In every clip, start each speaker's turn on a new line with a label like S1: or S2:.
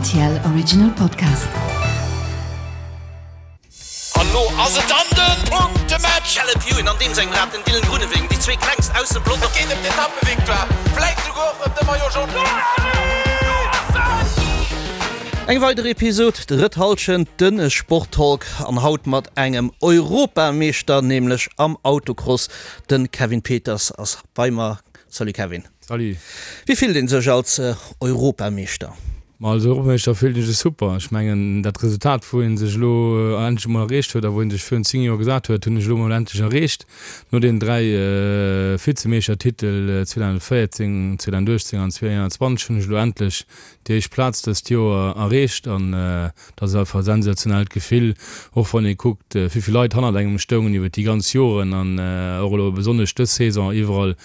S1: RTL Original Podcast.
S2: An lo ass et dann den Punktematch! Caleb Ewan an deem sengem Rad, den Dylan Groenewegen, déi zwee klengst aus dem Pelotong. Et geet ëm d'Etappevictoire, vläit souguer och ëm de Maillot Jaune.
S3: Eng weider Episod, drëtt Hallschent, de Sporttalk an haut mat engem Europameeschter, nämlech am Autocross. De Kevin Peters ass bei mer. Salut Kevin.
S4: Salut.
S3: Wéi fillt een sech als Europameeschter?
S4: Ma als Europameeschter fillt een sech super. Ech mengen dat Resultat wou een sech elo endlech emol erreecht huet a wou een sech virun 10 Joer gesat huet, hunn ech elo emol endlech erreecht. No den 3 Vizemeeschtertitel 2014, 2018 an 2021 hunn ech elo endlech déi éischt Plaz dëst Joer erreecht an dat ass einfach e sensationellt Gefill, och wann ee kuckt wéi vill Leit hannert engem stoungen iwwer déi ganz Joren an och elo besonnesch dës Saison iwwerall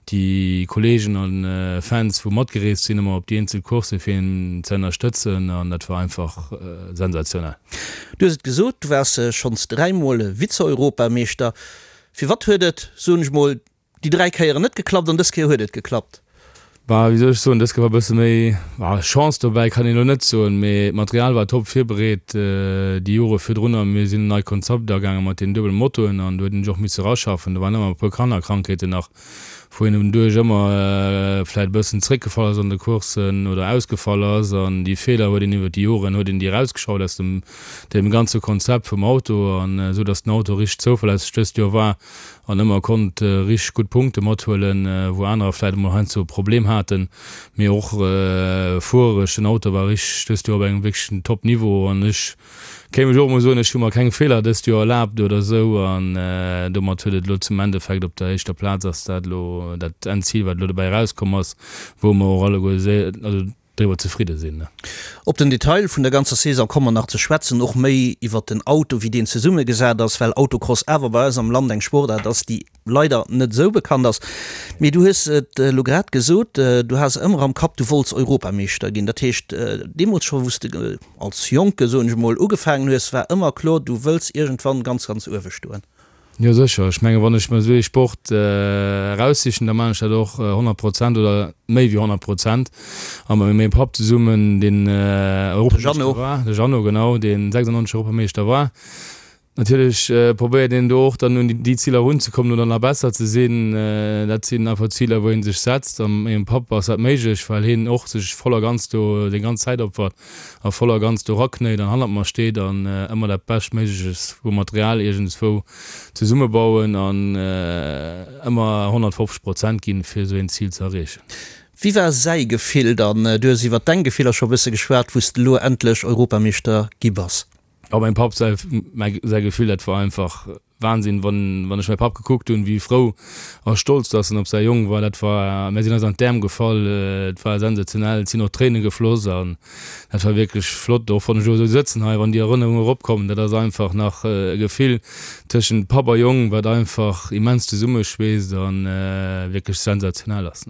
S4: déi Kollegen a Fans wou matgereest sinn ëmmer op déi eenzel Coursse fir een ze ënnerstëtzen an dat war einfach sensationell.
S3: Du hues et gesot, du waars schonns dräimol Vize-Europameeschter. Firwat huet et, soen ech mol, déi 3 Kéieren net geklappt an dës Kéier huet et geklappt?
S4: Bah, wéi soll ech soen, dës Kéier war e bësse méi, bah, Chance dobäi kann een elo net soen, mee d'Material war top virbereet déi Jore virdrunner. Mir sinn en neit Konzept agaange mat deenen duebele Motoen an do huet een sech och misse raschaffen. Do waren ëmmer e puer Kannerkrankheeten nach, wou een doduerch ëmmer vläit e bëssen zréckgefall ass an de Courssen oder ausgefall ass. An déi Feeler huet een iwwer déi Joren huet een déi erausgeschaut aus dem deem ganze Konzept vum Auto an esou datt den Auto richteg zouverlässeg dëst Joer war. an ëmmer konnt richteg gutt Punkte mathuelen, wou anerer vläit emol heiansdo e Problem haten. Mee och fuererech, den Auto war richteg dëst Joer op engem wierklechen Top Niveau an ech kéint mech och emol soen, ech hu mer keng Feeler dëst Joer erlaabt oder esou an domat huet et elo zum Endeffekt op der éischter Plaz ass dat elo dat Endzil wat elo dobäi erauskomm ass, wou mer och alleguer, also driwwer zefridde sinn.
S3: Op den Detail vun der ganzer Saison komme mer nach ze schwätzen, och méi iwwert den Auto, wéi deen zesummegesat ass, well Autocross awer bei eis am Land eng Sportaart ass, déi leider net esou bekannt ass. Mee du hues et elo grad gesot, du has ëmmer am Kapp, du wollts Europameeschter ginn. Dat heescht, deemools scho wou s de als Jonke, soen ech emol, ugefaangen hues, war ëmmer kloer, du wëlls iergendwann ganz, ganz uewe stoen.
S4: Jo sécher, ech menge wann ech mer esou ee Sport eraussichen, da maachen ech dat och 100 Prozent oder méi wéi 100 Prozent. A mat mengem Papp zesummen, deen Europameeschter war, de Jeannot genau, deen 96 Europameeschter war. Natierlech probéiert een do och dann un déi Ziler erunzekommen oder nach besser ze sinn. Dat sinn einfach Ziler wou ee sech setzt. A mat mengem Papp ass dat méiglech, well hien och sech voll a ganz do seng ganz Zäit opfert. a voll a ganz do raknéit an hannert mer steet an ëmmer dat Beschtméigleches vu Material iergendswou zesummebauen an ëmmer 150 Prozent ginn, fir esou een Zil ze erreechen.
S3: Wéi war säi Gefill dann? Du hues iwwer deng Gefiller scho e bësse geschwat, wou s de elo endlech Europameeschter gi bass.
S4: Oh, mengem Papp säi Gefill, dat war einfach Wahnsinn, wann wann ech mäi Papp gekuckt hunn, wéi frou a stolz dass en op säi Jong war, dat war, mär sinn eis an d'Äerm gefall, et war sensationell, et sinn och Tréine gefloss an dat war wierklech flott. Och wann ech elo esou sëtzen hei, wann déi Erënnerungen eropkommen, dat ass einfach nach e Gefill tëschent Papp a Jong, wat einfach immens zesummeschweesst a wierklech sensationell ass.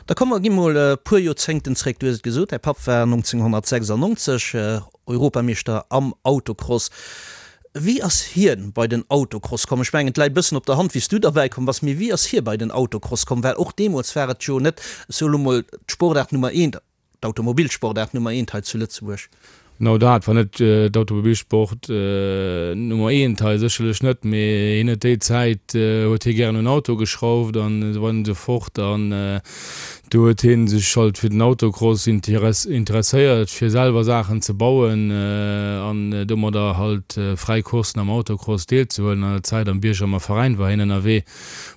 S3: Da komm mer gi mol e puer Joerzéngten zréck. Du hues et gesot, däi Papp war 1996 Europameeschter am Autocross. Wéi ass hien bei den Autocross komm? Ech mengen, et läit e bëssen op der Hand, wéi s du derbäi komm bass, mee wéi ass hie bei den Autocross komm? Well och deemools war et jo net, ech soe lo mol, d'Sportaart Nummer eent, d'Automobilsportaart Nummer eent hei zu Lëtzebuerg.
S4: Genau dat war net d'Automobilsport Nummer eent hei, sécherlech net, mee hien huet déi Zäit huet hie gären un Auto geschrauft an esou weider an esou fort an Do huet hien sech halt fir den Autocross interesséiert, fir selwer Saachen ze bauen an domadder halt fräi Courssen am Autocross deelzehuelen. An der Zäit am Biergermer Veräin war hien ënnerwee,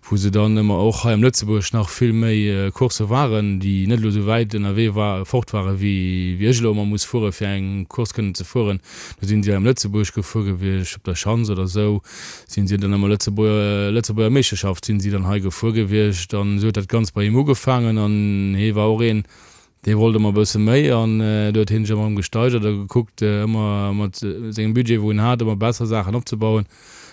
S4: wou se dann ëmmer och hei am Lëtzebuerg nach vill méi Coursse waren, déi net elo sou wäit ënnerwee war fort ware wéi ech elo ëmmer muss fuere fir eng Course kënnen ze fueren. Do sinn si hei am Lëtzebuerg gefuer gewiescht, op der Schanz oder sou. Sinn si dann ëmmer Lëtzebuerger, Lëtzebuerger Meeschterschaft sinn si dann hei gefuer gewiescht an esou huet dat Ganzt bei him ugefaangen an hee war och een, dee wollt ëmmer e bësse méi an do huet hien sech ëmmer erëm gesteigert a gekuckt ëmmer mat sengem Budget wou en hat ëmmer besser Saachen opzebauen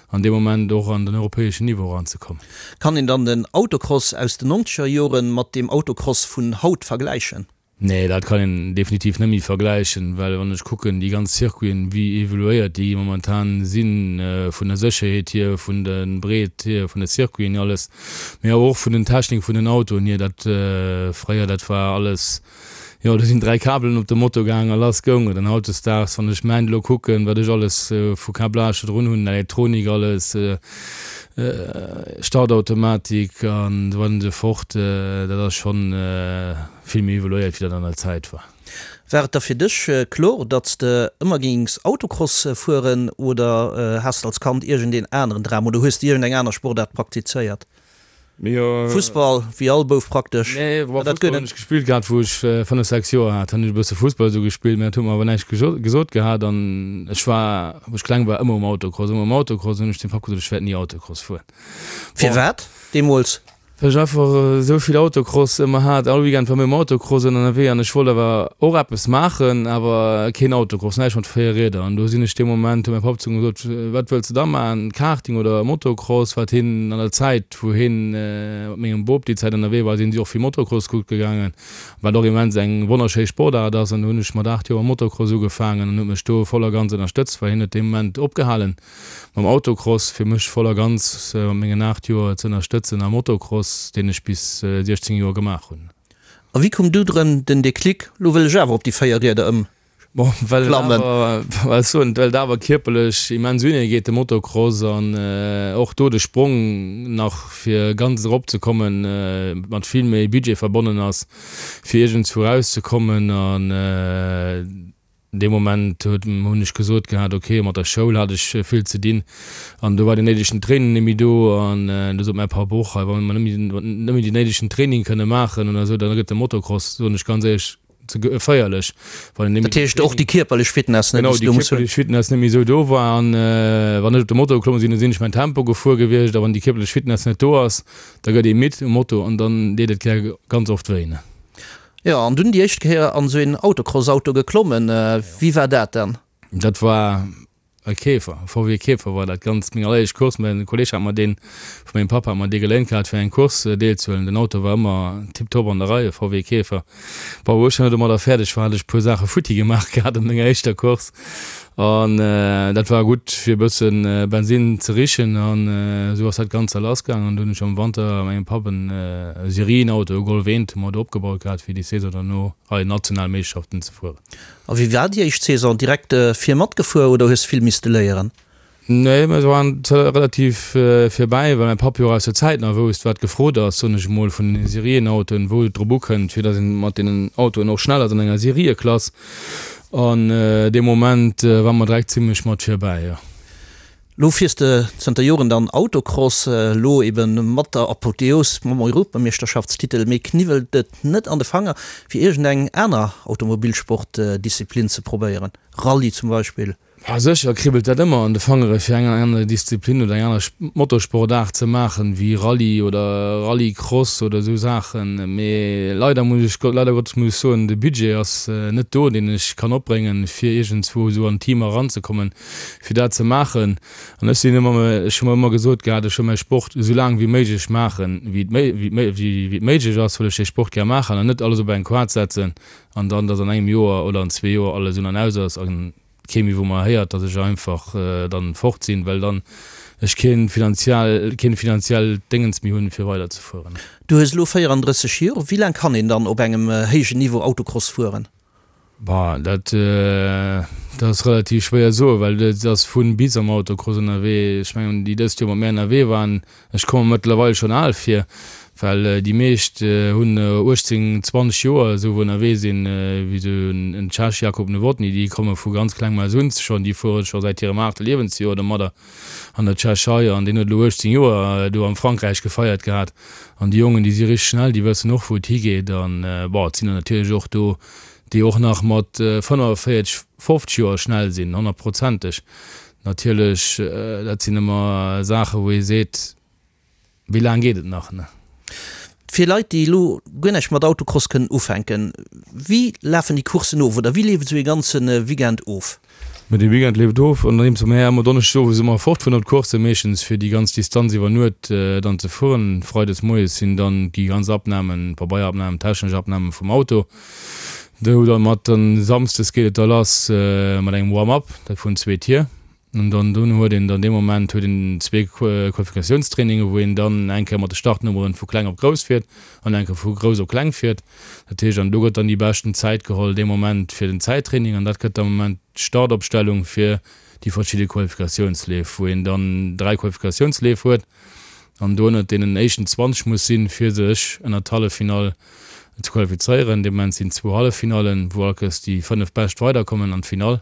S4: an dee Moment och an den europäeschen Niveau eranzekommen.
S3: Kann een dann den Autocross aus den nonzeger Joren mat deem Autocross vun haut vergläichen?
S4: Nee, dat kann een definitiv net méi vergläichen, well wann ech kucken, déi ganz Circuiten, wéi evoluéiert déi momentan sinn, vun der Sécherheet hier, vun der Breet hier vun de Circuiten, alles, mee awer och vun den Technik vun den Autoen hier, dat fréier, dat war alles, Jo, do sinn 3 Kabelen op de Moto gaang a lass goung et. An hautdesdaags, wann ech mäin elo kucken, wat ech alles vu Câblage do drun hunn, Elektronik alles, Startautomatik an esou weider an esou fort, dat ass schonn vill méi evoluéiert, wéi dat an der Zäit war.
S3: War et da fir dech kloer, datt s de ëmmer géings Autocross fueren oder has de als Kand iergendeen aneren Dram oder hues de iergendeng aner Sportaart praktizéiert? Fussball, wéi all Bouf praktesch.
S4: Nee, bon, Fussball hunn ech gespillt gehat, wou ech 5, 6 Joer hat, hunn ech e bësse Fussball esou gespillt, mä dat huet mer awer näischt gesot gehat. An ech war, wou ech kleng war, ëmmer um Autocross, ëmmer um Autocross. Hunn ech dem Papp gesot, ech wäert ni Autocross fueren.
S3: Firwat deemools?
S4: Well ech einfach esou vill Autocross ëmmer hat. All Weekend war mir um Autocross ënnerwee an ech wollt awer och eppes maachen, awer keen Autocross, näischt mat 4 Rieder. An do sinn ech dee Moment, huet mäi Papp zu mir gesot, Wat wëlls de da maachen, Karting oder Motocross? Wat hien an der Zäit, wou hien mat mengem Bop déi Zäit ënnerwee war, sinn si och vill Motocross kucke gaangen, wat och immens eng wonnerschéi Sportaart ass. An do hunn ech mat 8 Joer mam Motocross ugefaangen an huet mech do voll a ganz ënnerstëtzt, well hien huet dee Moment opgehalen. Mam Autocross, fir mech voll a ganz mat mengen 8 Joer ze ënnerstëtzen am Motocross, deen ech bis 16 Joer gemaach hunn.
S3: A wéi koum du drëm den Déclic, lo wëll ech awer op déi 4 Rieder ëm
S4: Bon, well et awer, well ech soen, well et awer kierperlech immens unee geet, de Motocross, an och do de Sprong nach fir ganz erop ze kommen, mat vill méi Budget verbonnen ass, fir iergendswou erauszekommen an. Dee Moment huet, hunn ech gesot gehat, ok, mat der Schoul hat ech vill ze dinn an do war den néidegen Training net méi do an du sot mäi Papp och, hei wa mer net méi, net méi den néidegen Training kënne maachen oder esou, da gëtt de Motocross, soen ech ganz éierlech, ze geféierlech,
S3: wann een net méi. Dat heescht och déi kierperlech Fitness,
S4: ne, déi s du muss hunn. Genau, déi kierperlech Fitness net méi esou do war an wann ech op de Moto geklomme sinn, da sinn ech mäin Tempo gefuer gewiescht a wann déi kierperlech Fitness net do ass, da gëtt ee midd um Moto an dann deet et gär ganz oft wéi, ne.
S3: Jo, an dunn déi éischt Kéier an esou een Autocross-Auto geklommen. Wéi war dat dann?
S4: Dat war e Käfer, e VW Käfer war dat Ganzt. Meng alleréischt Course, mäin Kolleg hat mer deen, vu mengem Papp hat mer dee geléint gehat fir eng Course deelzehuelen. Den Auto war ëmmer tiptop an der Rei, e VW Käfer. Bon, wou ech dann domadder fäerdeg war, hat ech e puer Saache futti gemaach gehat an menger éischter Course. An dat war gutt fir e bësse Bensin ze richen an esou ass dat Ganzt da lassgaangen. An du hunn ech am Wanter mengem Papp en Serienauto, e Golf 1, hu mer do opgebaut gehat fir déi Saison derno hei national Meeschterschaften ze fueren.
S3: A wéi war déi éischt Saison? Direkt vir matgefuer oder hues vill misste léieren?
S4: Nee, mir waren relativ virbäi, well mäi Papp jo och aus der Zäit nach wousst, wat gefrot ass, soen ech emol, vun den Serienautoen, wou et drop ukënnt, fir datt een mat deenen Autoen och schnell ass an enger Serieklass. An dee Moment ware mer direkt zimlech mat virbäi, jo.
S3: Lo fiers de zënter Joren dann Autocross, elo eben mat der Apotheos mam Europameeschterschaftstitel. Mee kniwwelt et net an de Fanger, fir iergendeng aner Automobilsportdisziplin ze probéieren, Rallye zum Beispill?
S4: Ma sécher kribbelt dat ëmmer an de Fangere fir eng aner Disziplin oder eng aner Motorsportaart ze maachen, wéi Rallye oder Rallycross oder esou Saachen. Mee leider muss ech, leider Gottes muss ech soen, de Budget ass net do, deen ech kann opbréngen, fir iergendswou esou an Team eranzekommen, fir dat ze maachen. An ech sinn ëmmer, ech hu mer ëmmer gesot gehat, ech wëll mäi Sport esou laang wéi méiglech maachen, wéi et wéi et méiglech ass, wëll ech dee Sport gär maachen an net alles op eng Quart setzen an dann, datt an engem Joer oder an zwee Joer alles un an aus ass an kee méi wou mer héiert, datt ech einfach dann fort sinn, well dann ech keen finanziell, keen finanziellt Déngens méi hunn fir weider ze fueren.
S3: Du hues elo 34 Joer, wéi laang kann een dann op engem héijen Niveau Autocross fueren?
S4: Bah, dat dat ass relativ schwéier soen, well et ass vun bis am Autocross ënnerwee. Ech mengen déi dëst Joer mat mär ënnerwee waren, Ech komme mer mëttlerweil schonn al vir, well déi meescht hunn 18, 20 Joer esou wou ënnerwee sinn, wéi esou en Tschech, Jakub Novotny, déi komme vu ganz klengem aus un schonn, déi fuere scho säit hirem aachte Liewensjoer domadder an der Tschechei an deen huet elo 18 Joer do am Frankräich gefeiert gehat. An déi Jongen, déi si richteg schnell, déi wëssen och wou et higeet an bon, et sinn der natierlech och do, déi och nach mat 45, 50 Joer schnell sinn, honnertprozenteg. Natierlech, dat sinn ëmmer Saachen, wou ee seet, wéi laang geet et nach, ne?
S3: Fir Leit, déi elo guer näischt mat Autocross kënnen ufänken, wéi lafen déi Courssen of oder wéi leeft esou ee ganze Weekend of?
S4: Mä dee Weekend leeft of, andeems mer ëmmer donneschdes owes ëmmer fortfueren op d'Coursse, meeschtens fir déi ganz Distanz iwwer Nuet dann ze fueren. Freides moies sinn dann déi ganz Abnamen, Pabeierabnamen, technesch Abname vum Auto. Do dann mat dann samsdes geet et da lass mat engem Warm-up, dat vun zwee Tier. An dann dono huet een dann dee Moment huet een zwee Qualifikationstrainingen, wou een dann eng Kéier mat de Startnummeren vu kleng op grouss fiert an eng Kéier vu grouss op kleng fiert. Dat heescht, an do gëtt dann déi beschten Zäit geholl dee Moment fir den Zäittraining an dat gëtt am Moment d'Startopstellung fir déi verschidde Qualifikatiounsleef, wou een dann 3 Qualifikatiounsleef huet an do ënnert deenen éischten 20 muss sinn, fir sech ënnert d'Halleffinall ze qualifizéieren. Dee Moment sinn zwou Halleffinallen, wou all Kéiers déi 5 Bescht weiderkommen an d'Finall.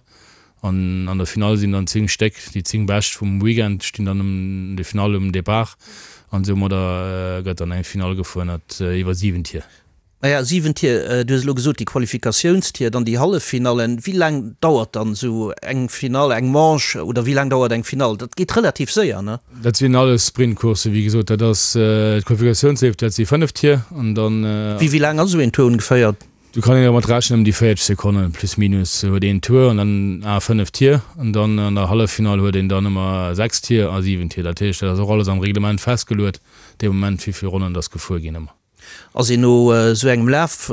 S4: An an der Finall sinn dann 10 Stéck, déi 10 Bescht vum Weekend stinn dann um de Finall um Depart an soumadder gëtt dann eng Finall gefuer ënnert iwwer 7 Tier.
S3: Naja, 7 Tier, du hues elo gesot déi Qualifikatiounstier, dann déi Halleffinallen. Wéi laang dauert dann esou eng Finall, eng Manche oder wéi laang dauert eng Finall? Dat geet relativ séier, ne?
S4: Dat sinn alles Sprintcourssen, wéi gesot. Dat ass d'Qualifikatiounsleef, dat si 5 Tier an dann.
S3: Wéi laang ass esou een Tour ongeféier?
S4: Do kann een dermat rechnen, ëm déi 40 Sekonnen plus minus huet een Tour an dann a 5 Tier an dann an der Halleffinall huet een dann ëmmer 6 Tier a 7 Tier. Dat heescht, dat ass och alles am Reglement festgeluet dee Moment, wéi vill Ronnen dass gefuer ginn ëmmer.
S3: Ass een no esou engem Laf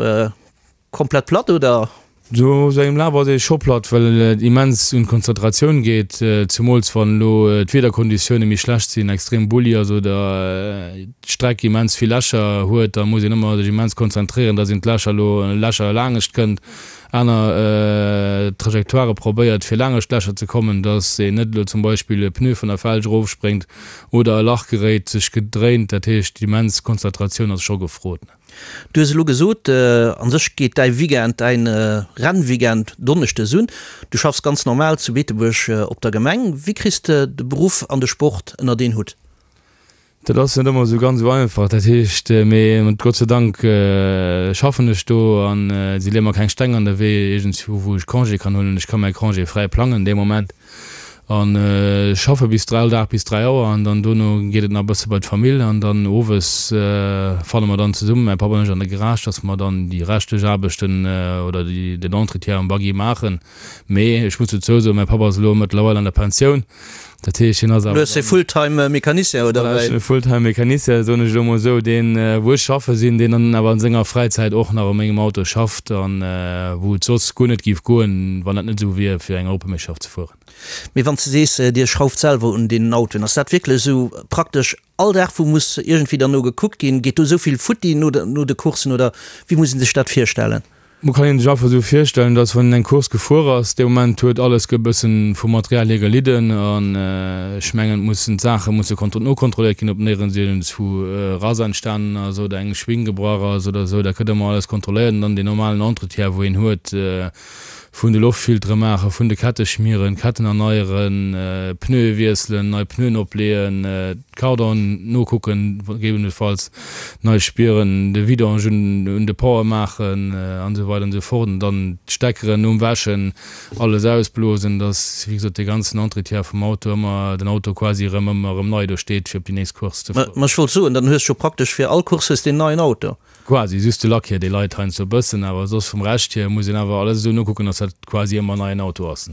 S3: komplett platt oder?
S4: No esou engem Laf ass ee scho platt, well et immens un d'Konzentratioun geet, zemools wann elo d'Wiederkonditioune méi schlecht sinn, extrem bulli ass oder d'Streck immens vill Lächer huet. Da muss een ëmmer sech immens konzentréieren, dass een d'Lächer elo Lächer laangescht kënnt, aner Trajectoirë probéiert fir laangescht d'Lächer ze kommen, dass een net elo zum Beispill e Pneu vun der Felg erofspréngt oder e Lach geréit, sech gedréint. Dat heescht, immens Konzentratioun ass scho gefrot.
S3: Du hues elo gesot, a sech geet däi Weekend, däin Rennweekend donneschdes un. Du schaffs ganz normal zu Beetebuerg op der Gemeng. Wéi kriss de de Beruff an de Sport ënnert een Hutt?
S4: Dat ass net ëmmer esou ganz esou einfach. Dat heescht, mee Gott sei Dank schaffen ech do an si leeë mer keng Steng an de Wee iergendswou, wou ech Congé kann huelen. Ech ka mäi Congé fräi plangen dee Moment. An schaffe bis all Dag bis 3 Auer an dann dono geet et nach e bësse bei d'Famill an dann owes fanne mer dann zesummen, mäi Papp an ech, an de Garage, dass mer dann déi reschtlech Aarbechten oder déi den Entretien am Buggy maachen. Mee ech muss dozou soen, mäi Papp ass elo mëttlerweil an der Pensioun, dat heescht hien ass
S3: awer. Du hues e Fulltime Mecanicien, oder
S4: wéi? Voilà, ech hunn e Fulltime Mecanicien, soen ech elo mol esou, deen, wou ech schaffe sinn, deen dann awer an senger Fräizäit och nach u mengem Auto schafft an wou et soss guer net géif goen, wann dat net esou wier, fir eng Europameeschterschaft ze fueren.
S3: Mee wann s de sees, Dir schrauft selwer un deenen Autoen, ass dat wierklech esou praktesch all Dag, wou muss iergendwéi derno gekuckt ginn? Geet do esou vill futti no de Courssen oder wéi muss ee sech dat virstellen?
S4: Mo kann een sech einfach esou virstellen, dass wann een eng Course gefuer ass, dee Moment huet alles e bëssen vum Material hier gelidden an ech mengen et mussen d'Saache musse nokontrolléiert ginn, ob néierens iergendswou e Rass entstanen ass oder eng Schwing gebrach ass oder esou. Dat gëtt ëmmer alles kontrolléiert an dann deen normalen Entretien wou een huet, Vun de Loftfiltere maachen, vun de Kette schmieren, Ketten erneieren, Pneue wiesselen, nei Pneuen opleeën, d'Cardan nokucken, gegebenenfalls nei spieren, de Vidange un de Power maachen an esou weider an esou fort. An dann d'Steckeren nom Wäschen alles ausblosen, dass wéi gesot dee ganzen Entretien vum Auto ëmmer, den Auto quasi erëm ëmmer erëm nei do steet fir op déi nächst Course ze
S3: fueren. Ma ech wollt soen, dann hues jo praktesch fir all Course hues de en neien Auto.
S4: Quasi, just de Lack hier, dee leit heiansdo e bëssen, awer soss vum Rescht hier muss een awer alles esou nokucken, dass dat quasi ëmmer en neien Auto ass.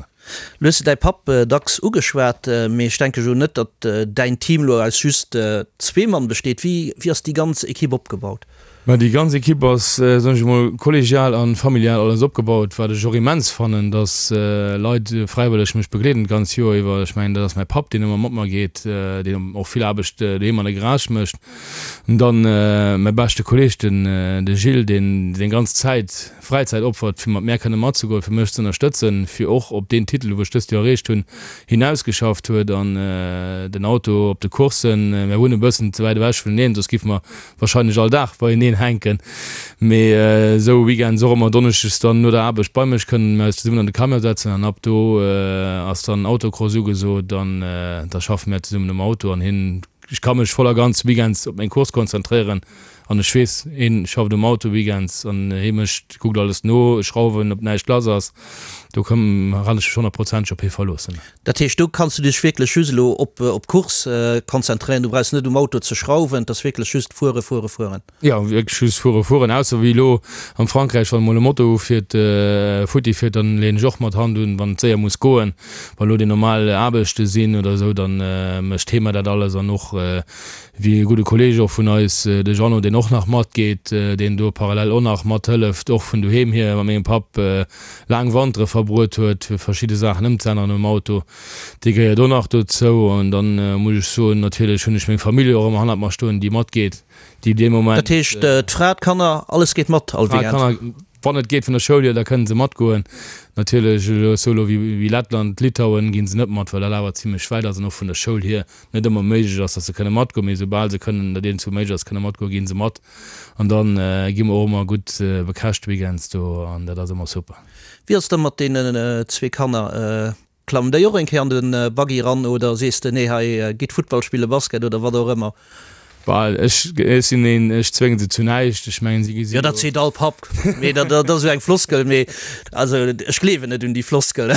S3: Lo hues de däi Papp dacks ugeschwat, mee ech denke jo net, datt däin Team lo aus just zwee Mann besteet. Wéi wéi ass déi ganz Ekipp opgebaut?
S4: Ma déi ganz Ekipp ass, soen ech emol, kollegial a familial alles opgebaut, wat ech och immens fannen, dass Leit fräiwëlleg mech begleeden d'ganz Joer iwwer. Ech mengen, dat ass mäi Papp, deen ëmmer mat mer geet, deen och vill Aarbecht doheem an der Garage mécht. An dann mäi beschte Kolleg, den de Gilles, deen seng ganz Zäit, Fräizäit opfert, fir mat mär kënne matzegoen, fir mech z'ënnerstëtzen, fir och op deen Titel, wou ech dëst Joer erreecht hunn, hinausgeschafft huet. An den Auto op de Courssen, mär wunnen e bëssen ze wäit ewech vuneneen, soss giffe mer wahrscheinlech all Dag beieneen hänken, mee esou Weekends och ëmmer donneschdes dann no der Aarbecht bei mech kënnen mer eis zesummen an de Camion setzen an ab do ass dann Autocross ugesot an da schaffe mär zesummen um Auto an hien Ech ka mech voll a ganz weekends op meng Course konzentréieren an ech weess, hien schafft um Auto weekends an hie mécht, kuckt alles no, Schrauwen, ob näischt lass ass. Do kann ech mech honnertprozenteg op hie verloossen.
S3: Dat heescht, do kanns du dech wierklech just elo op d'Course konzentréieren, du brauchs net um Auto ze schrauwen, et ass wierklech just fuere, fuere, fueren.
S4: Jo, wierklech just fuere, fueren, ausser wéi elo am Frankräich, wann emol e Moto ufiert, futti fiert, dann leeën ech och mat Hand un, wann et séier muss goen. Wa lo déi normal Aarbechte sinn oder esou, dann mécht hee mer dat alles an och wéi e gudde Kolleeg och vun eis, de Jeannot, deen. deen och nach matgeet, deen do parallel och nach mathëlleft, och vun doheem hier mat mengem Papp laang Wantere verbruet huet, fir verschidde Saachen ëmzeänneren um Auto. Dee gehéiert och nach dozou. An dann muss ech soen, natierlech hunn ech meng Famill och ëmmer hannert mer stoen, déi matgeet, déi dee Moment.
S3: Dat heescht, d'Fra, d'Kanner, alles geet mat all
S4: Weekend? D'Fra, d'Kanner, wann et geet vun der Schoul hier, da kënnen se matgoen. Natierlech elo esou elo wéi Lettland, Litauen ginn se net mat, well dat awer zimlech wäit ass an och vun der Schoul hier net ëmmer méiglech ass, datt se kënne matgoen. Mee soubal se kënnen, datt iergendwou méiglech ass, kënne matgoen, ginn se mat. An da gi mer och ëmmer gutt bekäscht weekends do an dat ass ëmmer super.
S3: Wéi ass et da mat deenen zwee Kanner? Klammen déi och eng Kéier an de Buggy ran oder sees de, nee hei gitt Futtball spillen, Basket oder wat och ëmmer?
S4: Well ech sinn een, ech zwénge se zu näischt. Ech mengen, si
S3: gesi jo. Jo, dat seet all Papp, mee dat ass esou eng Floskel, mee also ech gleewen net un déi Floskel.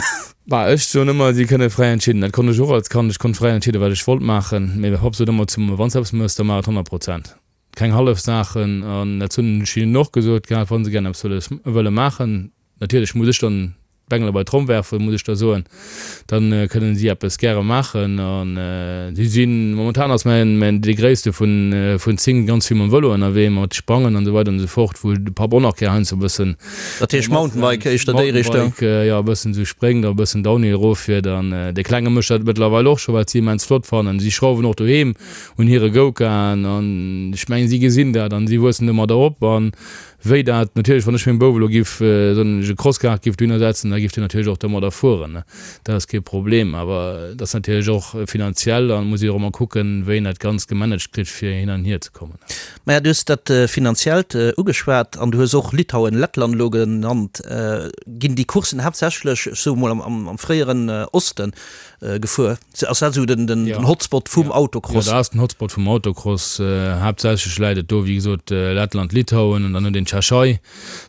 S4: Bah, ech soen ëmmer, si kënne fräi entscheeden. Dat konnt ech och als Kand, ech konnt fräi entscheeden, wat ech wollt maachen. Mee mäi Papp sot ëmmer zu mer, Wann s de eppes méchs, da maach et 100 Prozent. Keng hallef Saachen. An dat hunn ech hinnen och gesot gehat, wa se gären eppes wëlles, wëlle maachen, natierlech muss ech dann d'Bengele bei d'Tromm werfen, muss ech da soen, da kënnen si eppes gäre maachen. An si sinn, momentan ass mäin, mäin, dee Gréisste vun, vun 10 ganz vill mam Vëlo ënnerwee, mat Sprangen an esou weider an esou fort, wou de Papp och nach gär heiansdo e bëssen.
S3: Dat heescht Mountainbike éischter déi Richtung?
S4: Mountainbike, jo, e bëssen esou spréngt a e bëssen Downhill eroffiert. An dee Klenge mécht dat mëttlerweil och scho, wat si immens flott fannen. Si schrauwen och doheem un hire Go-Karten an ech mengen, si gesinn dat an si wuessen domadder op. An wéi dat natierlech, wann ech mengem Bouf elo giff, soen ech, e Crosskart giff dohinner setzen, da giff deen natierlech och domadder fueren, dat ass kee Problem. Awer et ass natierlech och finanziell an muss ee och ëmmer kucken, wéi een dat Ganzt gemanagt kritt, fir hin an hier ze kommen.
S3: Maja, du hues dat Finanziellt ugeschwat an du hues och Litauen, Lettland elo genannt. Ginn déi Courssen haaptsächlech, ech soe mol, am fréieren Osten gefuer? Ass dat esou den Hotspot vum Autocross?
S4: Jo, dat ass den Hotspot vum Autocross. Haaptsächlech läit et do, wéi gesot, Lettland, Litauen an dann huet een d'Tschechei.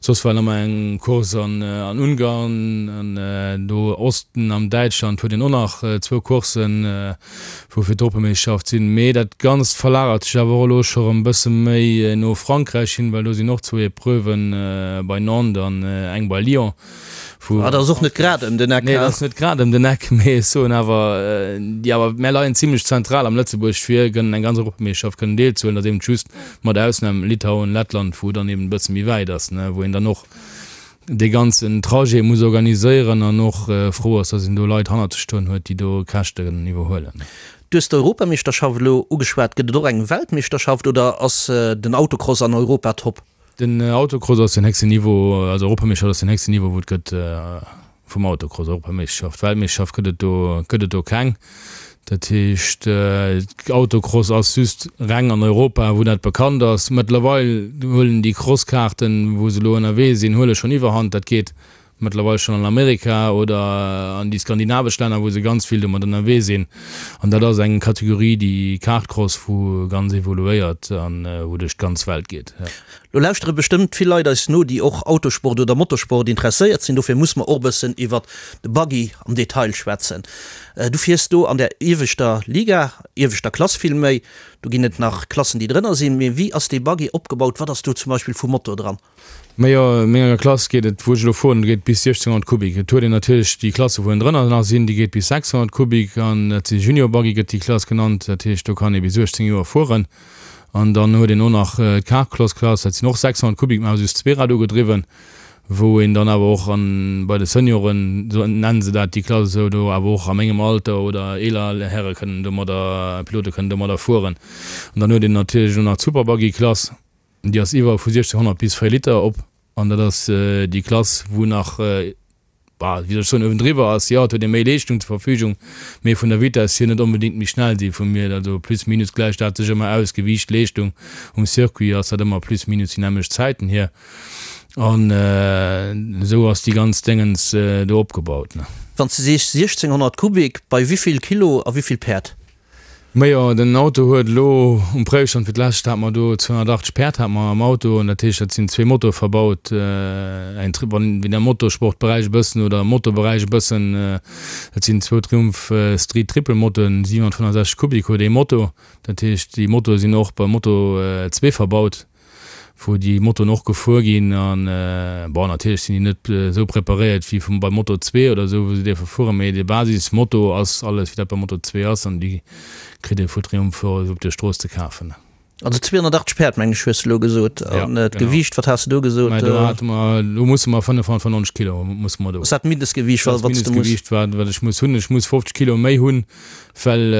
S4: Soss war nach eng Course an Ungarn an do Osten am Däitschland huet een och nach zwou Courssen, wou fir d'Europameeschterschaft sinn. Mee dat Ganzt verlagert sech awer och elo scho rëm e bësse méi no Frankräich hin, well do sinn och zwou Epreuven bei Nantes an eng bei Lyon.
S3: Wou. Ah, dat ass och net grad ëm den Eck.
S4: Nee, dat ass net grad ëm den Eck, mee ech soen awer, déi awer, mär leien zimlech zentral am Lëtzebuerg fir kënnen eng ganz Europameeschterschaft kënnen deelzehuelen. Dat ass eben just mat Ausnam Litauen, Lettland, wou dann eben e bësse méi wäit ass, ne, wou een dann och dee ganzen Trajet muss organiséieren an och frou ass, dass een do Leit hannert sech stoen huet, déi do Käschten iwwerhuelen.
S3: Du hues d'Europameeschterschaft elo ugeschwat. Gëtt et och eng Weltmeeschterschaft oder ass den Autocross an Europa top?
S4: Den Autocross ass den héchsten Niveau, also Europameeschterschaft ass den héchsten Niveau wou et gëtt vum Autocross, Europameeschterschaft. Weltmeeschterschaft gëtt et do, gëtt et do keng. Dat heescht Autocross ass just reng an Europa wou dat bekannt ass. Mëttlerweil huelen déi Crosskaarten wou se elo ënnerwee sinn, huele schonn Iwwerhand. Dat geet mëttlerweil schonn an Amerika oder an déi skandinavesch Länner, wou se ganz vill domat ënnerwee sinn. An dat ass eng Kategorie, déi Kartcross, wou ganz evoluéiert an wou duerch d'ganz Welt geet.
S3: Lo lauschtere bestëmmt vill Leit eis no, déi och Autosport oder Motorsport interesséiert sinn. Dofir muss mer och e bëssen iwwert de Buggy am Detail schwätzen. Du fiers do an der ieweschter Liga, ieweschter Klass villméi. Do ginn et nach Klassen, déi drënner sinn. Mee wéi ass dee Buggy opgebaut? Wat ass do zum Beispill vu Motor dran?
S4: Majo, an menger Klass geet et, wou ech elo fueren, geet bis 1600 Kubik. Et huet een natierlech déi Klasse wou ënnendrënner nach sinn, déi geet bis 600 Kubik an dat si Junior Buggy gëtt déi Klass genannt. Dat heescht do kann ee bis 18 Joer fueren. An dann huet een och nach d'Carcross Klass, dat sinn och 600 Kubik, mä awer just zweerad ugedriwwen, wou een dann awer och an bei de Senioren, sou nennen se dat déi Klass esou, do awer och a mengem Alter oder eeler Häre kënnen domadder, Pilote kënnen domadder fueren. An dann huet een natierlech och nach d'Super Buggy Klass. Déi ass iwwer vu 1600 bis 4 Liter op an dat ass déi Klass, wou nach, bah, wéi soll ech soen, uewendriwwer ass. Jo, et huet ee méi Leeschtung zur Verfügung, mee vun der Vitess hier net onbedéngt méi schnell si vu mir. Also plus minus gläicht dat sech ëmmer aus, Gewiicht, Leeschtung. Um Circuit ass dat ëmmer plus minus déi nämmlecht Zäiten hier an esou ass déi ganz Déngens do opgebaut.
S3: Wann s de sees 1600 Kubik, bei wéivill Kilo a wéivill Päerd?
S4: Majo, den Auto huet elo um Préifstand fir d'lescht hate mer do 280 Päerd hate mer am Auto an dat heescht dat sinn zwee Motoe verbaut, eng Tri wann wien am Motorsportberäich e bëssen oder am Motoberäich e bëssen, dat sinn zwou Triumph Street Triple Motoen, 765 Kubik huet ee Moto, dat heescht déi Motoe sinn och beim Moto zwee verbaut. wou déi Motoen och gefuer ginn an bon natierlech sinn déi net esou preparéiert wéi vum beim Moto 2 oder esou wou se dierfe fueren, mee de Basismoto ass alles wéi dat beim Moto 2 ass an déi kritt ee vu Triumph och esou op der Strooss ze kafen.
S3: Also 280 Päerd, mengen ech, hues de elo gesot. An d'Gewiicht, wat has de do gesot?
S4: Mä do hate mer, do musse mer 595 Kilo musse mer do.
S3: Ass dat d'Mindestgewiicht, wat s de muss?
S4: Dat ass d'Mindestgewiicht, wat, wat ech muss hunn. Ech muss 50 Kilo méi hunn, well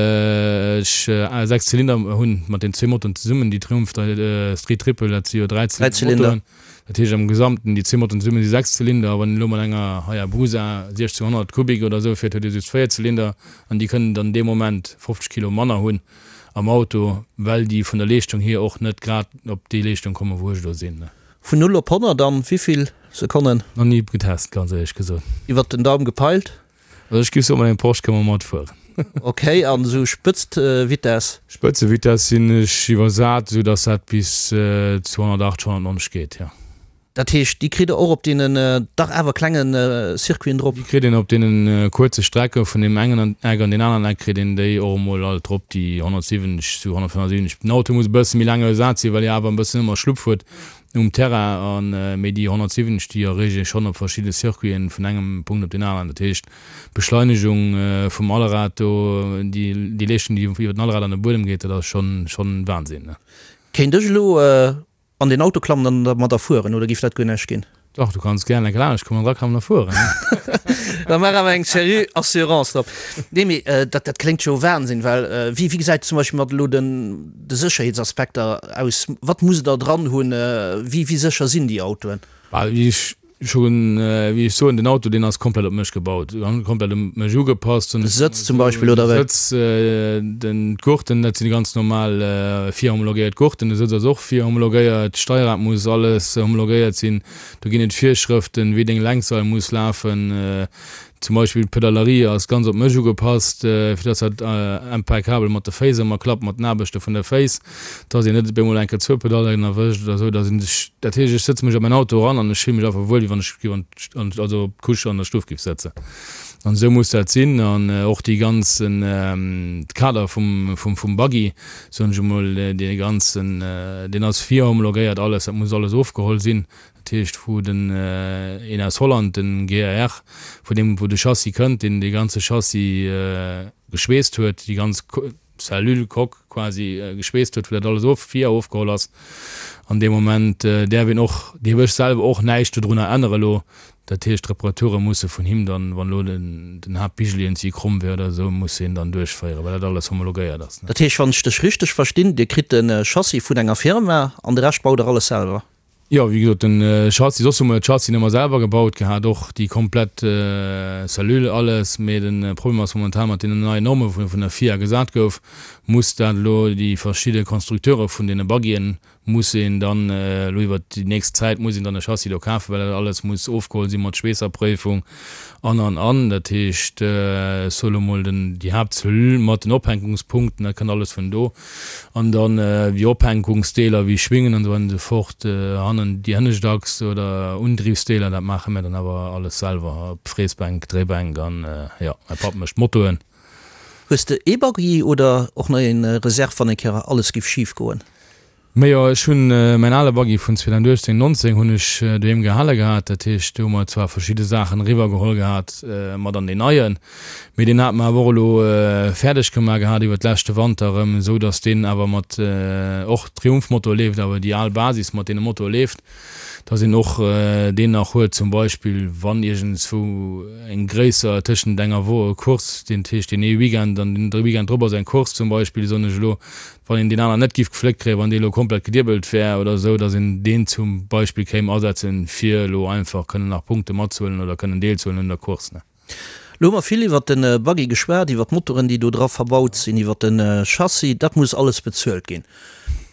S4: ech 6 Zylinder hunn, mat den zwee Motoren zesummen. Déi Triumph Street Triple, dat si jo 3 Zylinder Motoren. Dat heescht am Gesamten, déi zwee Motoren zesumme si 6 Zylinder. A wann een elo mat enger Hayabusa 1600 Kubik oder esou fiert, huet ee just 4 Zylinder an déi kënnen dann dee Moment 50 Kilo manner hunn. am Auto, well déi vun der Leeschtung hier och net grad op déi Leeschtung kommen, wou ech elo sinn.
S3: Vun 0 op 100 an wéivill Sekonnen?
S4: Nach ni getest, ganz éierlech gesot.
S3: Iwwert den Daum gepeilt?
S4: Also ech giff soen, mat engem Porsche kënne mer matfueren.
S3: Ok, an esou Spëtztvitess?
S4: Spëtzevitess sinn ech iwwersat, esou dass dat bis 280, 190 geet, jo.
S3: Dat heescht, déi kritt Der och op deenen dach awer klenge Circuiten drop?
S4: Déi kritt een op deene kuerze Strecke vun deem engen Eck an deen aneren Eck kritt een déi och emol alt drop, déi 170 zu 175. Den Auto muss e bësse méi laang ersat sinn, well e awer e bëssen ëmmer Schlupp huet um Terrain. An, mee déi 170, déi erreecht ee schonn op verschidde Circuiten vun engem Punkt op deen aneren. Dat heescht, d'Beschleinegung vum Allrad do, déi Leeschtung, déi iwwer den Allrad an de Buedem geet, dat ass schonn, schonn Wahnsinn.
S3: Kéint ech elo An den Auto klammen an dermadder fueren, oder giff dat guer näischt ginn?
S4: Dach, du kanns gären eng Kéier kommen an draklammen a fueren.
S3: Da maach awer eng seriö Assurance drop. Nee, mee dat, dat kléngt jo Wahnsinn, well wéi, wéi gesäit et zum Beispill mat elo den, de Sécherheetsaspekter aus? Wat musst Der dran hunn? Wéi, wéi sécher sinn déi Autoen?
S4: Bah, wéi ech Schon, wéi ech soen, den Auto deen ass komplett op mech gebaut, komplett op mech ugepasst.
S3: De Sëtz zum Beispill, oder
S4: wéi? De Sëtz, den, d'Gurten, dat sinn déi ganz normal virhomologéiert Gurten. De Sëtz ass och virhomologéiert, d'Steierrad muss alles homologéiert sinn. Do ginn et Virschrëften, wéi deng Lenkseil muss lafen. Zum Beispill d'Pedalerie ass ganz op mech ugepasst, fir dass dat impeccabel mat de Féiss ëmmer klappt, mat den Aarbechte vun de Féiss, dass een net op eemol eng Kéier zwou Pedallen erwëscht oder esou, dass een sech, dat heescht, ech sëtze mech a mäin Auto eran an ech fille mech einfach wuel, wéi wann ech géif an, also op d'Couche an der Stuff géif sëtzen. An esou muss dat sinn. An och déi ganzen, de Kader vum, vum, vum Buggy, soen ech emol, dee ganzen, deen ass virhomologéiert alles, dat muss alles ofgeholl sinn. Dat heescht, wou den een aus Holland, den GAR, vun deem wou de Chassis kënnt, deen dee ganze Chassis geschweesst huet, déi ganz Cellule, Coque quasi geschweesst huet, wou dat alles of, vir ofgeholl ass. An dee Moment däerf een och, dierf ech selwer och näischt dodrunner ännere lo. Dat heescht, d'Reparature musse vun him dann, wann elo den Haaptbigel iergendwéi kromm wär oder esou, muss hien dann duerchféieren, well dat alles homologéiert ass.
S3: Dat heescht, wann ech dech richteg verstinn, Dir kritt de Chassis vun enger Firma an de Rescht baut Der alles selwer?
S4: Jo, wéi gesot, den Chassis, soss hu mer de Chassis ëmmer selwer gebaut gehat, och déi komplett Cellule, alles, mee de Problem ass momentan mat deenen neien Norme wou vun der FIA gesat gouf, muss dat elo déi verschidde Constructeure vun deene Buggyen muss een dann elo iwwert déi nächst Zäit muss een dann e Chassis do kafen, well dat alles muss ofgeholl si mat Schweesserpréifung an an an. Dat heescht, ech soe lo mol den déi Haaptcellule mat den Ophänkungspunkten, dat kënnt alles vun do. An dann wéi Ophänkungsdeeler wéi Schwingen an esou weider an esou fort, hannen déi hënnescht Achs oder Undriwsdeeler, dat maache mär dann awer alles selwer, op Fräsbänk, Dréibänk an jo, mäi Papp mécht d'Motoen.
S3: Hues de ee Buggy oder och nach een Reserve wann eng Kéier alles giff schif goen?
S4: Majo, ech hunn mäin ale Buggy vun 2018, 19 hunn ech doheem gehale gehat. Dat heescht, do hu mer zwar verschidde Saachen eriwwer geholl gehat mat an deen neien, mee deen hate mer awer och elo fäerdeg gemaach gehat iwwer d'leschte Wanter erëm, esou datt deen awer mat och Triumph-Motor leeft, awer déi al Basis mat deene Motor leeft, datt een och deen nach huet zum Beispill wann iergendswou eng gréisser tëschent enger Wo Course, deen heescht deen ee Weekend an den Weekend drop ass eng Course zum Beispill, soen ech elo, wann een deen aneren net giff gefléckt kréien, wann dee elo komplett gediebelt wär oder esou, datt een deen zum Beispill kéim asetzen, fir elo einfach kënnen nach Punkte matzehuelen oder kënnen deelzehuelen un der Course, ne.
S3: Elo hu mer vill iwwert de Buggy geschwat, iwwert d'Motoren, déi do dra verbaut sinn, iwwert de Chassis. Dat muss alles bezuelt ginn.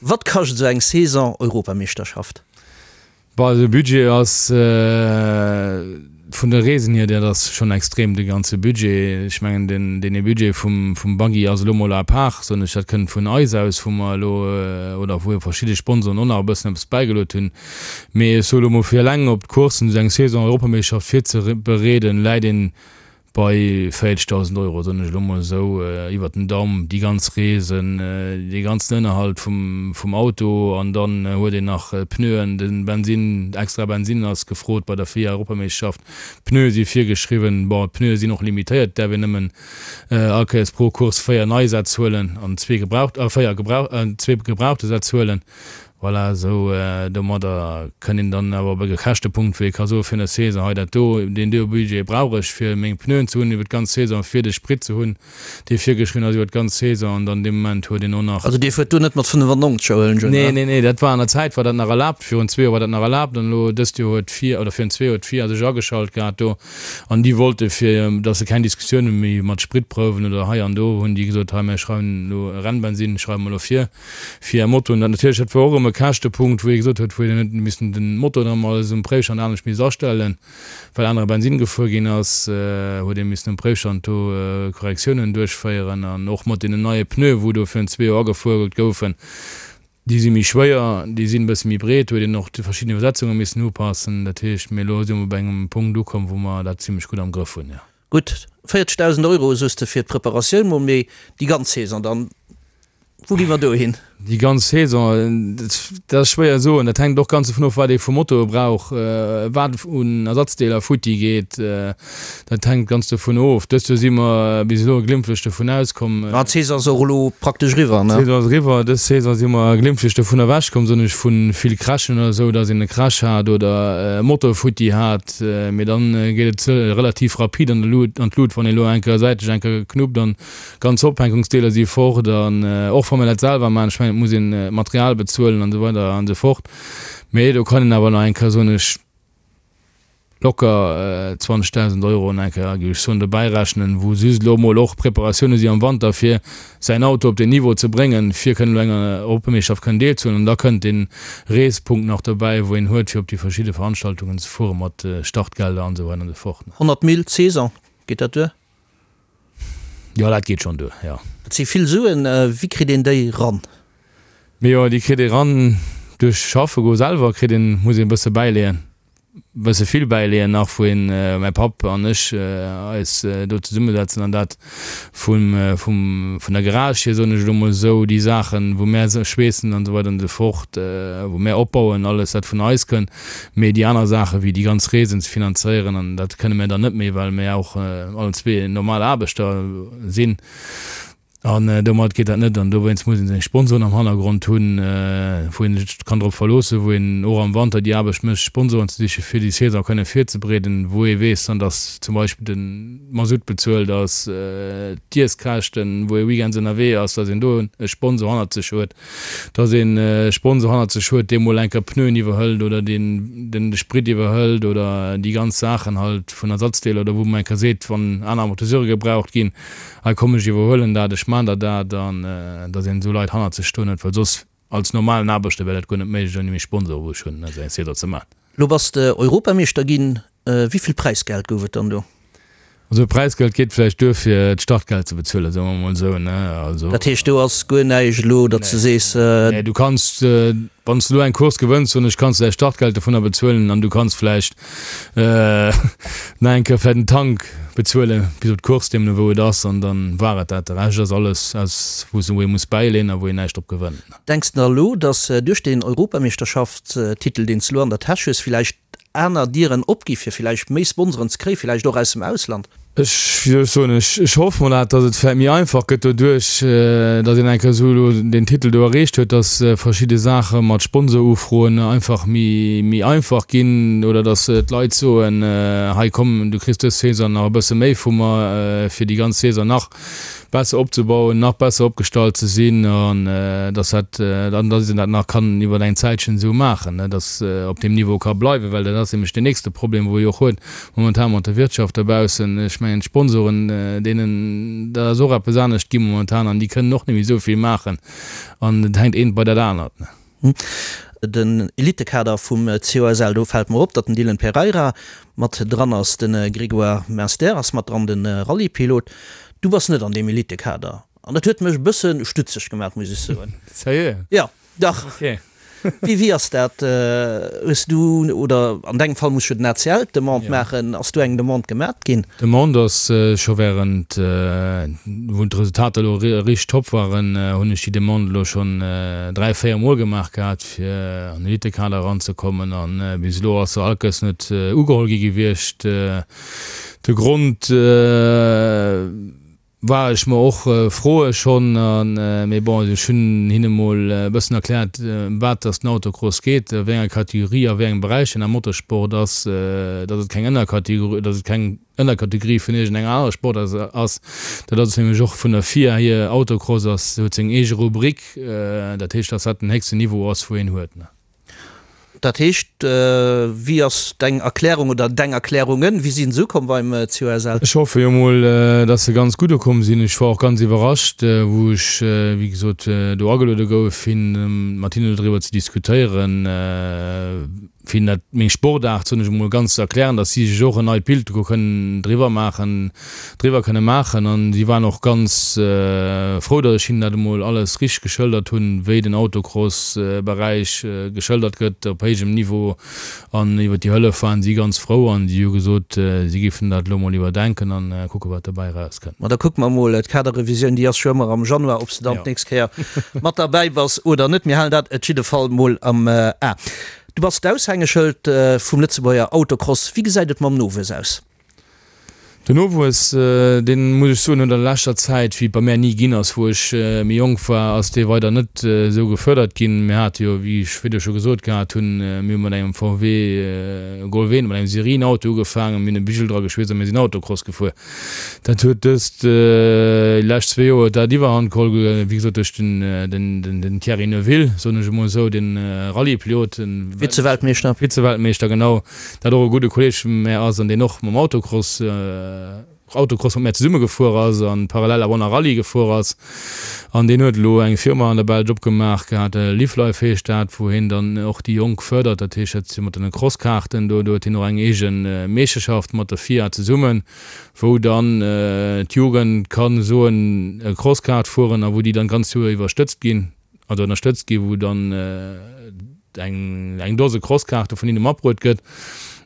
S3: Wat kascht esou eng Saison Europameeschterschaft?
S4: Bon, de Budget ass vun de Reesen hier, dat ass schonn extrem, de ganze Budget. Ech mengen, den, deen ee Budget vum, vum Buggy ass elo mol à part, soen ech, dat kënnt vun eis aus, wou mer elo, oder wou verschidde Sponsoren och nach e bëssen eppes bäigeluet hunn. Mee ech soe lo mol, fir eleng op d'Coursen, esou eng Saison Europameeschterschaft virzebereeden, läit een. Bei 40.000 Euro, soen ech elo mol esou iwwert den Daum, déi ganz Reesen, dee ganzen Ënnerhalt vum, vum Auto an dann huet een nach d'Pneuen, de Bensinn, extra Bensinn ass gefrot bei der FIA-Europameeschterschaft, d'Pneue si virgeschriwwen. Bon, d'Pneue sinn och limitéiert, et däerf een nëmmen all Kéiers pro Course 4 nei Sätz huelen an zwee gebraucht, 4 gebrauch, zwee gebrauchte Sätz huelen. Voilà, esou domadder kënnt een dann awer op e Käschtepunkt, wou ee ka soen, fir eine Saison hei dat do, deen do Budget brauch ech, fir meng Pneuen ze hunn iwwer d'ganz Saison, fir de Sprit ze hunn, dee virgeschriwwen ass iwwer d'ganz Saison. An dann dee Moment huet een och nach.
S3: Also Dir fuert do net mat 95, huelen ech un,
S4: Nee, nee, nee, dat war an der Zäit war dat nach erlaabt, virun zwee Joer war dat nach erlaabt an elo dëst Joer huet d'FIA, oder virun zwee Joer huet d'FIA sech ageschalt gehat do an déi wollte fir datt se keng Diskussioune méi mat Spritprouwen oder hei an do, hunn déi gesot, hei mir schreiwen elo Rennbensinn schreiwe mer elo vir. fir är Motoen. Dat natierlech, dat war och erëm e Käschtepunkt, wou ee gesot huet, wou een huet missen den Motor dann emol um Préifstand anescht misst astellen, well anere Bensinn gefuer ginn ass, huet ee missen um Préifstand do Korrektiounen duerchféieren. An och mat deenen neie Pneue wou do virun zwee Joer agefuert goufen, déi si méi schwéier, déi sinn e bësse méi breet, huet een och déi verschidden Iwwersetzunge missen upassen. Dat heescht, mee elo si mer bei engem Punkt ukomm, wou mer dat zimlech gutt am Grëff hunn, jo.
S3: Gutt 40.000 Euro soos de fir d'Preparatioun mol, mee déi ganz Saison dann, wou gi mer do hin?
S4: Déi ganz Saison, dat ass schwéier soen. Dat hänkt och ganz dovun of, wat ee vu Motoe brauch, wat un Ersatzdeeler futti geet. Dat hänkt ganz dovun of. Dëst Joer si mer bis elo glimpflech dovun auskomm.
S3: Ah, d'Saison ass och elo praktesch eriwwer,
S4: ne? D'Saison ass eriwwer. Dës Saison si mer glimpflech dovun ewechkomm, soen ech, vu vill Crashen oder esou, datt een e Crash hat oder e Motor futti hat. Mee dann geet et relativ rapid an d'Lut, wann ee elo eng Kéier säitlech eng Kéier knuppt an Ganz Ophänkungsdeeler si fort an och wa mir dat selwer maachen, ech mengen et muss een d'Material bezuelen an esou weider an esou fort, mee do kann een awer nach eng Kéier, soen ech, locker 20.000 Euro nach eng Kéier, géif ech soen, dobäi rechnen, wou just elo emol och Preparatioune si am Wanter fir säin Auto op deen Niveau ze bréngen, fir kënnen elo enger Europameeschterschaft kënnen deelzehuelen. An da kënnt dee Reespunkt nach dobäi, wou een huet fir op déi verschidde Veranstaltungen ze fuere mat Startgelder an esou weider an esou fort.
S3: 100 Mille d'Saison, geet dat duer?
S4: Jo, dat geet schonn duer, jo.
S3: Dat si vill Suen. Wéi kritt een déi ran?
S4: Mee jo, déi kritt ee ran duerch schaffe goe selwer, kritt een, muss een e bësse bäileeën, e bësse vill bäileeën nach, wou een, mäi Papp an ech, eis do zesummesetzen an dat vum, vum, vun der Garage hier, soen ech elo mol esou, déi Saachen, wou mär schweessen an esou weider an esou fort, wou mär opbauen, alles wat vun eis kënnt. Mee déi aner Saache wéi déi ganz Reesen ze finanzéieren, an dat kënne mir dann net méi, well mir och allen zwee normal Aarbechter sinn. An domat geet dat net. An dowéinst muss ee seng Sponsoren am Hannergrond hunn, wou ee sech kann drop verloossen, wou een och am Wanter déi Aarbecht mécht, Sponsoren ze sichen, fir déi Saison kënne virzebereeden, wou ee weess dann, datt zum Beispill de Masutt bezuelt ass, d'Iesskäschten, wou ee weekends ënnerwee ass, datt een do e Sponsor hannert sech huet. dass een e Sponsor hannert sech huet, dee mol eng Kéier Pneuen iwwerhëlt oder deen den de Sprit iwwerhëlt oder déi ganz Saachen halt vun Ersatzdeeler oder wou man eng Kéier seet, wann aner Amortisseure gebraucht ginn, hei komm ech iwwerhuelen dat, ech maan der dat an dass een esou Leit hannert sech stoen huet, well soss als normalen Aarbechter wär dat guer net méiglech ouni meng Sponsoren, wou ech hunn, esou eng Saison ze maan.
S3: Lo bass de Europameeschter ginn, wéi vill Präisgeld gouf et dann do?
S4: Also Präisgeld geet vläicht duer fir d'Startgeld ze bezuelen, soe mer emol esou, ne? Also.
S3: Dat heescht do ass guer näischt elo, datt s de sees.
S4: Nee, du kanns, wann s de elo eng Course gewënns, soen ech, kanns de däi Startgeld dovunner bezuelen an du kanns vläicht nach eng Kéier vläicht den Tank bezuele bis op d'Course, deemno wou et ass, an dann war et dat. De Rescht ass alles aus wou ee muss bäileen a wou een näischt drop gewënnt.
S3: Denks de elo, datt duerch deen Europameeschterschaftstitel, deen s de elo an der Täsch hues, villäicht aner Dieren opgi fir villäicht méi Sponsoren ze kréien, villäicht och aus dem Ausland?
S4: Ech, wéi soll ech soen, ech, ech hoffe mol dat, datt et vläicht méi einfach gëtt doduerch, datt een eng Kéier esou elo deen Titel do erreecht huet, datt verschidde Saache mat Sponsorufroen einfach méi, méi einfach ginn oder datt d'Leit soen, hei komm, du kriss dës Saison nach e bësse méi vu mer, fir déi ganz Saison nach besser opzebauen, nach besser opgestallt ze sinn an dass dat an dass een dat nach kann iwwer eng Zäitchen esou maachen, ne, dass op deem Niveau ka bleiwen, well dat ass nämlech deen nächste Problem, wou ee och huet momentan mat der Wirtschaft dobaussen. Ech mengen d'Sponsoren, deenen, dat ass och eppes anescht gi momentan an déi kënnen och net méi esou vill maachen an et hänkt eent bei dat anert, ne.
S3: Den Elitekader vum COSL, do fält mer op, datt den Dylan Pereira mat dran ass, de Grégoire Munster ass mat dran, de Rallye-Pilot. Du bass net an deem Elitekader an dat huet mech e bësse stutzeg gemaach, muss ech soen.
S4: Sérieux?
S3: Jo, dach.
S4: Ok.
S3: Wéi, wéi ass dat? Hues du, oder an dengem Fall muss jo den ACL d'Demande maachen, ass do eng Demande gemat ginn?
S4: D'Demande ass scho während, wou d'Resultater elo richteg top waren, hunn ech déi Demande elo schonn 3, 4 Mol gemaach gehat, fir an den Elitekader eranzekommen. A bis elo ass se all Kéiers net ugeholl gi gewiescht. De Grond, War ech mer och froe schonn, mee bon, ech hunn hinne mol e bëssen erkläert, ëm wat dass den Autocross geet, a wéi enger Kategorie, a wéi engem Beräich en am Motorsport ass, dass et keng Ënnerkategorie, dass et keng Ënnerkategorie vun iergendenger anerer Sportaart ass. Dat ass nämlech och vun der FIA hier, Autocross ass, huet seng eege Rubrik, dat heescht, dass dat den héchsten Niveau ass, wou een huet.
S3: Dat heescht, wéi ass deng Erklärung oder deng Erklärungen, wéi sinn se ukomm beim COSL?
S4: Ech hoffe jo mol, dass se ganz gutt ukomm sinn. Ech war och ganz iwwerrascht, wou ech, wéi gesot, do ageluede gouf, fir mat hinnen doriwwer ze diskutéieren, fir hinnen dat, meng Sportaart, soen ech emol, ganz ze erklären, dass si sech och en neit Bild do kënnen driwwer maachen. driwwer kënne maachen an si waren och ganz frou, datt ech hinnen dat emol alles richteg geschëldert hunn, wéi den Autocross-Beräich geschëldert gëtt op héijem Niveau an iwwer déi Hëllef waren si ganz frou an si hu gesot, si géifen dat elo emol iwwerdenken an kucke wat dobäi erauskënnt.
S3: Ma da kucke mer emol, d'Kaderrevisioun déi ass jo ëmmer am Januar, ob s de dann d'nächst Kéier mat derbäi bass oder net. Mir halen dat et jidde Fall mol am A. Du bass d'Aushängeschëld vum Lëtzebuerger Autocross. Wéi gesäit et mam Nowuess aus?
S4: Den Nowuess, deen, muss ech soen, huet an der leschter Zäit, wéi et bei mär ni ginn ass, wou ech méi jonk war, ass dee weider net esou gefördert ginn. Mir hate jo, wéi ech virdu scho gesot gehat hunn, mir hu mat engem VW Golf 1, mat engem Serienauto ugefaangen, mir hunn e Bigel dra geschweesst a mir sinn Autocross gefuer. Dat huet dëst, déi lescht zwee Joer huet dat Iwwerhand geholl, wéi gesot duerch den Thierry Neuville, soen ech emol esou, den Rallye-Pilot, den
S3: Vize-Weltmeeschter.
S4: Vize-Weltmeeschter, genau. Dat och e gudde Kolleg vu mär ass an deen och mam Autocross, Autocross mat mär zesumme gefuer ass an parallel awer och nach Rallye gefuer ass. An deen huet elo eng Firma an der Belsch opgemaach gehat, Live Life heescht dat, wou hien dann och déi Jonk fërdert. Dat heescht, dat si mat den Crosskaarten do, do huet hien och eng eege Meeschterschaft mat der FIA zesummen, wou dann d'Jugend kann soen e Crosskaart fueren a wou déi dann d'ganz Joer iwwer stëtzt ginn. also ënnerstëtzt ginn, wou dann eng eng Dose Crosskaarte vun hinne matbruet gëtt.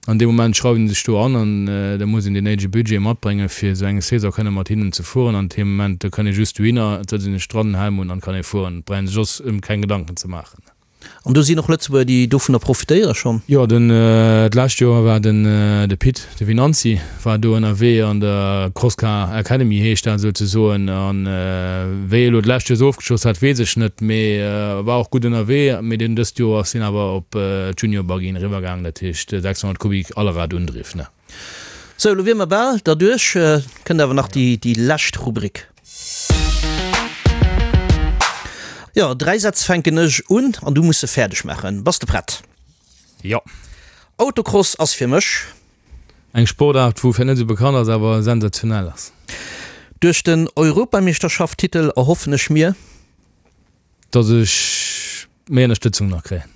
S4: An dee Moment schreiwen se sech do an an da muss een deen néidege Budget matbréngen, fir esou eng Saison kënne mat hinnen ze fueren. An deem Moment, do kënn ee just dohinner, et sëtzt een sech dran, den Helm un an kann ee fueren. Et brauch een sech soss ëm keng Gedanken ze maachen.
S3: An do sinn och Lëtzebuerger, déi dovunner profitéiere schonn?
S4: Jo, den d'lescht Joer war den de Pit, de Venanzi war do ënnerwee an der Crosscar Academy heescht dat souzesoen. An wéi e lo d'lescht Joer esou ofgeschloss hat, weess ech net, mee war och gutt ënnerwee. Mee deen dëst Joer ass hien awer op d'Junior Buggyen eriwwergaangen, dat heescht 600 Kubik Allrad-Undriff, ne.
S3: Sou, elo wier mer bal derduerch. Kënnt awer nach déi lescht Rubrik. Jo, 3 Sätz fänken ech un an du muss se fäerdeg maachen. Bass de prett?
S4: Jo.
S3: Autocross ass fir mech.
S4: Eng Sportaart, wou vläicht net esou bekannt ass, awer sensationell ass.
S3: Duerch den Europameeschterschaft-Titel erhoffen ech mir.
S4: Dass ech méi Ënnerstëtzung nach kréien.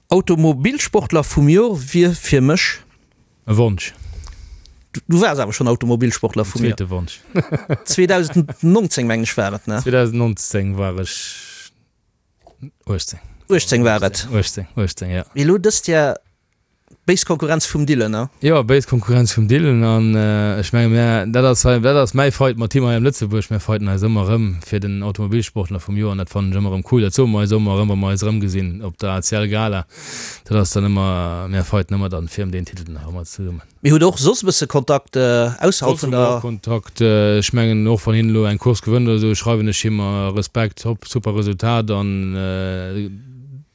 S3: Automobilsportler vum Jor wier fir mech.
S4: E Wonsch.
S3: Du waars awer schonn Automobilsportler vum
S4: Joer. Zweete Wonsch.
S3: 2019 mengen ech war et, ne?
S4: 2019 war ech 18.
S3: 18 war et.
S4: 18, 18, jo.
S3: Mee elo dëst Jahr béis Konkurrenz vum Dylan, ne?
S4: Jo, béis Konkurrenz vum Dylan an ech menge mär, dat ass hei, dat ass mäi Fight mat him hei am Lëtzebuerg. Mär fighten eis ëmmer erëm fir den Automobilsportler vum Joer an dat fannen ech ëmmer erëm cool. Dat soe mer eis ëmmer erëm, wa mer eis erëmgesinn op der ACL Gala. Dat ass dann ëmmer, mär fighten ëmmer dann fir ëm deen Titel nach ëmmer zesummen.
S3: Mee hutt och soss e bësse Kontakt ausserhalb
S4: vun der. Kontakt, ech mengen och wann hien elo eng Course gewënnt oder esou, schreiwen ech him Respekt, hopp, super Resultat an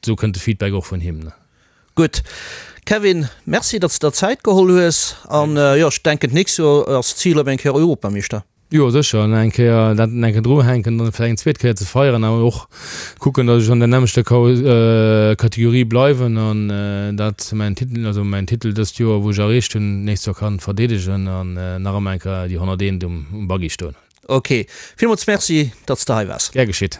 S4: esou kënnt de Feedback och vun him.
S3: Gutt Kevin, Merci datt s de der Zäit geholl hues an jo ech denken d'nächst Joer ass d'Zil op eng Kéier Europameeschter.
S4: Jo sécher, an eng Kéier dat eng Kéier druhänken, dann vläicht eng zweet Kéier ze feieren, awer och kucken, datt ech an der nämmlechter Kategorie bleiwen an dat mäin Titel, also mäin Titel dëst Joer, wou ech erreecht hunn, d'nächst Joer kann verdeedegen an nach ëmmer eng Kéier déi 101 um Buggy stoen hunn.
S3: Ok, villmools Merci, datt s de hei waars.
S4: Gär geschitt.